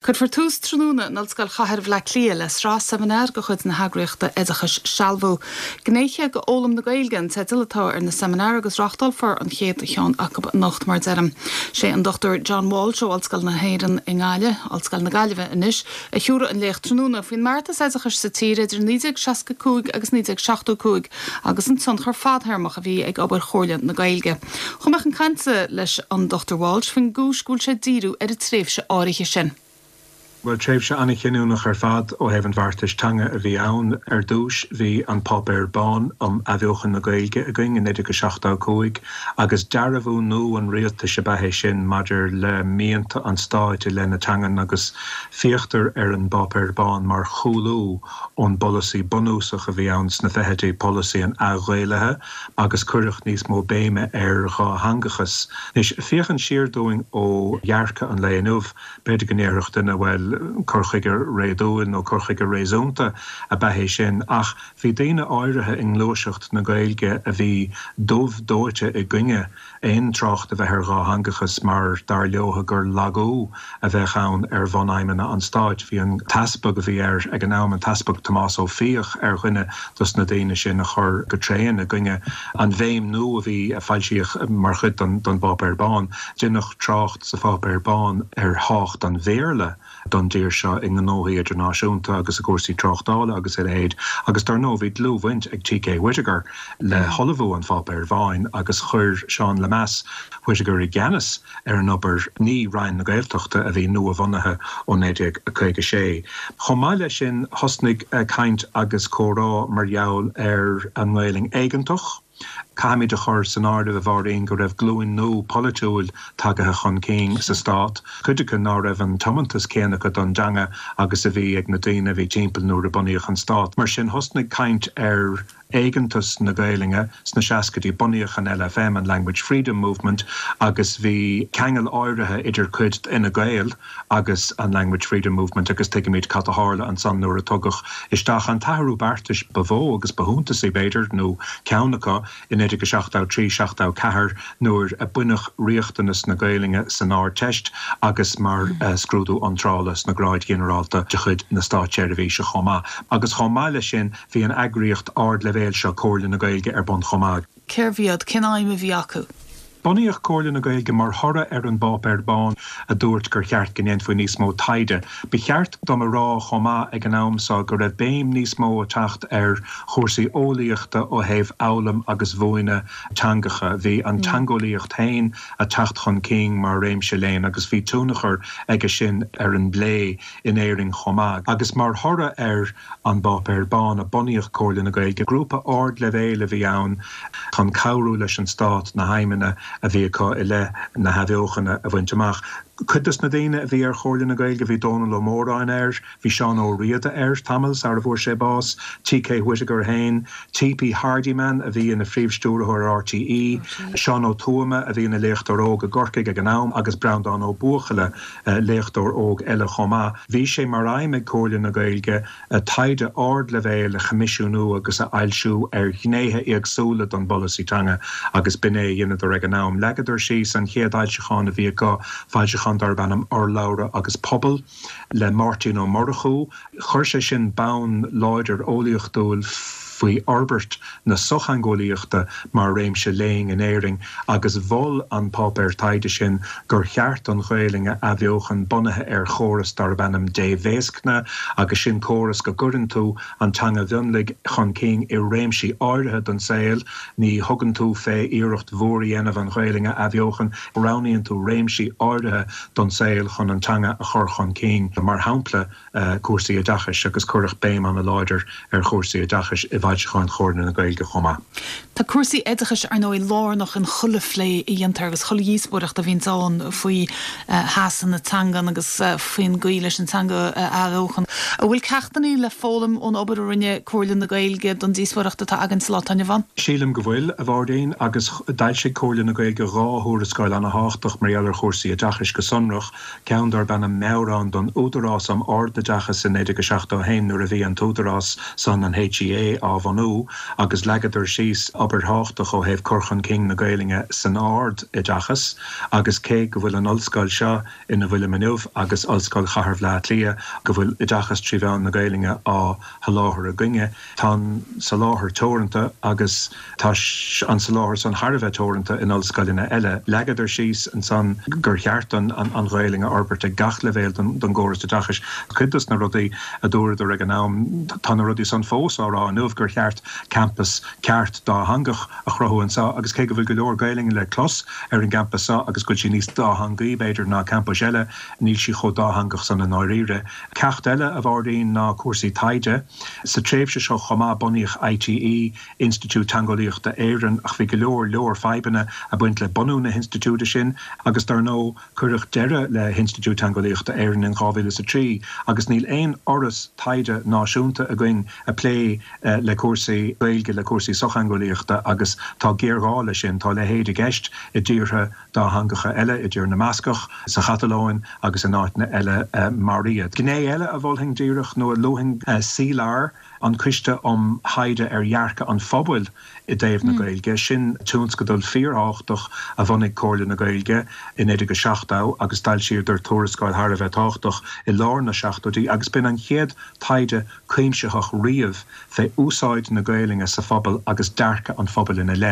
Cuirfear tús tráthnóna in Ollscoil Chathair Bhaile Átha Cliath le sraith seimineár de chuid na heagraíochta oideachais Sealbhú. Gnéithe d'Fhoghlaim na Gaeilge an teideal atá ar na seimineáir agus reáchtálfar an chéad cheann acu anocht mar a deirim. Sé an Dr John Walsh ó Ollscoil na hÉireann i nGaillimh, Ollscoil na Gaillimhe anois, a thiúrfaidh an léacht tráthnóna faoin mbeartas oideachais sa tír idir 1965 agus 1975 agus an tionchar fadthéarmach a bhí ag obair Chomhairle na Gaeilge. Chuaigh mé chun cainte leis an Dr Walsh faoin gcúis go bhfuil sé ag díriú ar an tréimhse áirithe sin. Bhuel, tréimhse an-chinniúnach ar fad ó thaobh an bheartais teanga a bhí ann. Ar dtús, bhí an Páipéar Bán um Athbheochan na Gaeilge againn i 1975 agus dearbhú nua an rialtais ab ea é sin maidir le mianta an stáit i leith na teangan agus féachtar ar an bPáipéar Bán mar chúlú ón bpolasaí bunúsach a bhí ann sna fichidí, polasaí an athghaelaithe. agus cuireadh níos mó béime ar dhátheangachas. Anois, féachaint siar dúinn ó dhearcadh an lae inniu, b'fhéidir go ndéarfadh duine, bhuel, cur chuige réadúil nó cur chuige réasúnta ab ea é sin, ach bhí daoine áirithe i ngluaiseacht na Gaeilge a bhí dubh dóite i gcoinne aon trácht a bheith ar dhátheangachas mar dar leotha gur lagú a bheadh ann ar bhunaidhmeanna an stáit. Bhí an t-easpag a bhí air ag an am, an tEaspag Tomás Ó Fiaich, ar dhuine dos na daoine sin a chuir go tréan i gcoinne an bhéim nua a bhí, a foilsíodh mar chuid den bPáipéar Bán. Deineadh trácht sa Pháipéar Bán ar thábhacht an Bhéarla. don dtír seo i ngnóthaí idirnáisiúnta agus i gcúrsaí tráchtála agus a leithéid agus dar ndóigh bhí dlúthbhaint ag T.K. Whitaker le hullmhú an Pháipéir Bháin agus chuir Seán Lemass Whitaker i gceannas ar an obair, ní Roinn na Gaeltachta a bhí nua-bhunaithe ó 1956. Chomh maith leis sin thosnaigh caint agus comhrá mar gheall ar an nGaelainn éigeantach. Caithfimid a chur san áireamh, a Mháirín, go raibh glúin nua polaitiúil tagaithe chun cinn sa stát, cuid acu ná raibh an tiomantas céanna acu don dteanga agus a bhí ag na daoine a bhí timpeall nuair a bunaíodh an stát. Mar sin, thosnaigh caint ar éigeantas na Gaelainne sna seascaidí. Bunaíodh an LFM, an Language Freedom Movement, agus bhí ceangal áirithe idir cuid d'Fhine Gael agus an Language Freedom Movement agus tuigimid cad a tharla ansan nuair a tugadh isteach an t-athrú beartais ba mhó agus ba shuntasaí, b'fhéidir, nó ceann acu, i 1973, 74 nuair a baineadh riachtanas na Gaelainne san Ardteist agus mar scrúdú iontrála sna gráid ghinearálta de chuid na státseirbhíse chomh maith. Agus chomh maith leis sin bhí an eagraíocht ardleibhéil seo, Comhairle na Gaeilge, ar bun chomh maith. Cérbh iad? Cén aidhm a bhí acu? Bunaíodh Comhairle na Gaeilge mar thoradh ar an bPáipéar Bán a dúirt gur cheart go ndéanfaí níos mó taighde. Ba cheart dom a rá chomh maith ag an am seo go raibh béim níos mó ag teacht ar chúrsaí eolaíochta ó thaobh fhoghlaim agus mhúineadh teangacha. Bhí an teangeolaíocht féin ag teacht chun cinn mar réimse léinn agus bhí tionchar aige sin ar an bplé in Éirinn chomh maith. Agus mar thoradh ar an bPáipéar Bán a bunaíodh Comhairle na Gaeilge. Grúpa ardleibhéil a bhí ann chun cabhrú leis an Stát na haidhmeanna a bhí acu i leith na hathbheochana a bhaint amach. Cuid dos na daoine a bhí ar Chomhairle na Gaeilge, bhí Dónall Ó Móráin air, bhí Seán Ó Riada air tamall sara bhfuair sé bás, T.K. Whitaker féin, T.P. Hardiman a bhí ina Phríomh-Stiúrthóir ar RTÉ, Seán Ó Tuama a bhí ina léachtóir óg i gCorcaigh ag an am agus Breandán Ó Buachalla, léachtóir óg eile chomh maith. Bhí sé mar aidhm ag Comhairle na Gaeilge taighde ardleibhéil a choimisiúnú agus a fhoilsiú ar ghnéithe éagsúla den bpolasaí teanga agus b'in é a dheineadar ag an am. Leagadar síos an chéad fhoilseachán a bhí acu, foilseachán darb ainm Urlabhra agus Pobal le Máirtín Ó Murchú. Chuir sé sin bonn láidir eolaíochtúil faoi fhorbairt na sochtheangeolaíochta mar réimse léinn in Éirinn agus mhol an páipéar taighde sin gur cheart an Ghaelainn a athbheochan bunaithe ar chóras darb ainm débhéascna agus sin córas go gcuireann tú an teanga mhionlaigh chun cinn i réimsí áirithe den saol, ní thugann tú fé iarracht mhór a dhéanamh an Ghaelainn a athbheochan, roghnaíonn tú réimsí áirithe don saol chun an teanga a chur chun cinn, mar shampla. cúrsaí oideachais agus cuireadh béim an-láidir ar chúrsaí oideachais i bhfoilseacháin Chomhairle na Gaeilge chomh maith. Tá cúrsaí oideachais, ar ndóigh, lárnach in chuile phlé a dhéantar agus chuile dhíospóireacht a bhíonns ann faoi sheasamh na teangan agus faoin gcaoi leis an teanga a athbheochan. An bhfuil ceachtanna le foghlaim ón obair a rinne Comhairle na Gaeilge don díospóireacht atá againn sa lá atá inniu ann? Sílim go bhfuil, a Mháirín, agus d'fhoilsigh Comhairle na Gaeilge 2 thuarascáil an-thábhachtach mar gheall ar chúrsaí oideachais go sonrach. ceann darb ainm Meabhrán don Údarás um Ardoideachas i 1971 nuair a bhí an t-údarás san, an HEA, á. bhunú agus leagadar síos obair thábhachtach ó thaobh cur chun cinn na Gaelainne san ard-oideachas agus cé go bhfuil an ollscoil seo ina bhfuilim inniu agus Ollscoil Chathair Bhaile Átha Cliath go bhfuil oideachas trí mheán na Gaelainne á sholáthar againne, tá an soláthar teoranta agus tá an soláthar san thar a bheith teoranta in ollscoileanna eile. Leagadar síos ansan gur cheart an Ghaelainn a fhorbairt ag gach leibhéal den gcóras oideachais. Cuid dos na rudaí a dúradar ag an am, tá na rudaí san fós á rá inniu, gur cheart campas ceart dátheangach a chruthú anseo agus cé go bhfuil go leor Gaelainne le clos ar an gcampas seo agus go bhfuil sí níos dátheangaí, b'fhéidir, ná campais eile, níl sí chomh dátheangach san i ndáiríre. Ceacht eile, a Mháirín, ná cúrsaí taighde. Sa tréimhse seo chomh maith bunaíodh ITE, Institiúid Teangeolaíochta Éireann, ach bhí go leor leor fadhbanna ag baint le bunú na hinstitiúide sin agus dar ndóigh cuireadh deireadh le hInstitiúid Teangeolaíochta Éireann in 2003 agus níl aon fhoras taighde náisiúnta againn ag plé le cúrsaí Gaeilge, le cúrsaí sochtheangeolaíochta agus tá géarghá leis sin. Tá a leithéid i gceist i dtíortha dátheangacha eile, i dTír na mBascach, sa Chatalóin agus in áiteanna eile mar iad. Gné eile a mholfainn díreach, nó a luafainn, CLAR, an Coiste um Thaighde ar Dhearcadh an Phobail i dtaobh na Gaeilge. Sin tionscadal fíorthábhachtach a bhunaigh Comhairle na Gaeilge i 1970 agus d'fhoilsíodar tuarascáil thar a bheith tábhachtach i lár na seachtóidí agus b'in an chéad taighde cuimsitheach riamh fé úsáid na Gaelainne sa phobal agus dearcadh an phobail ina leith.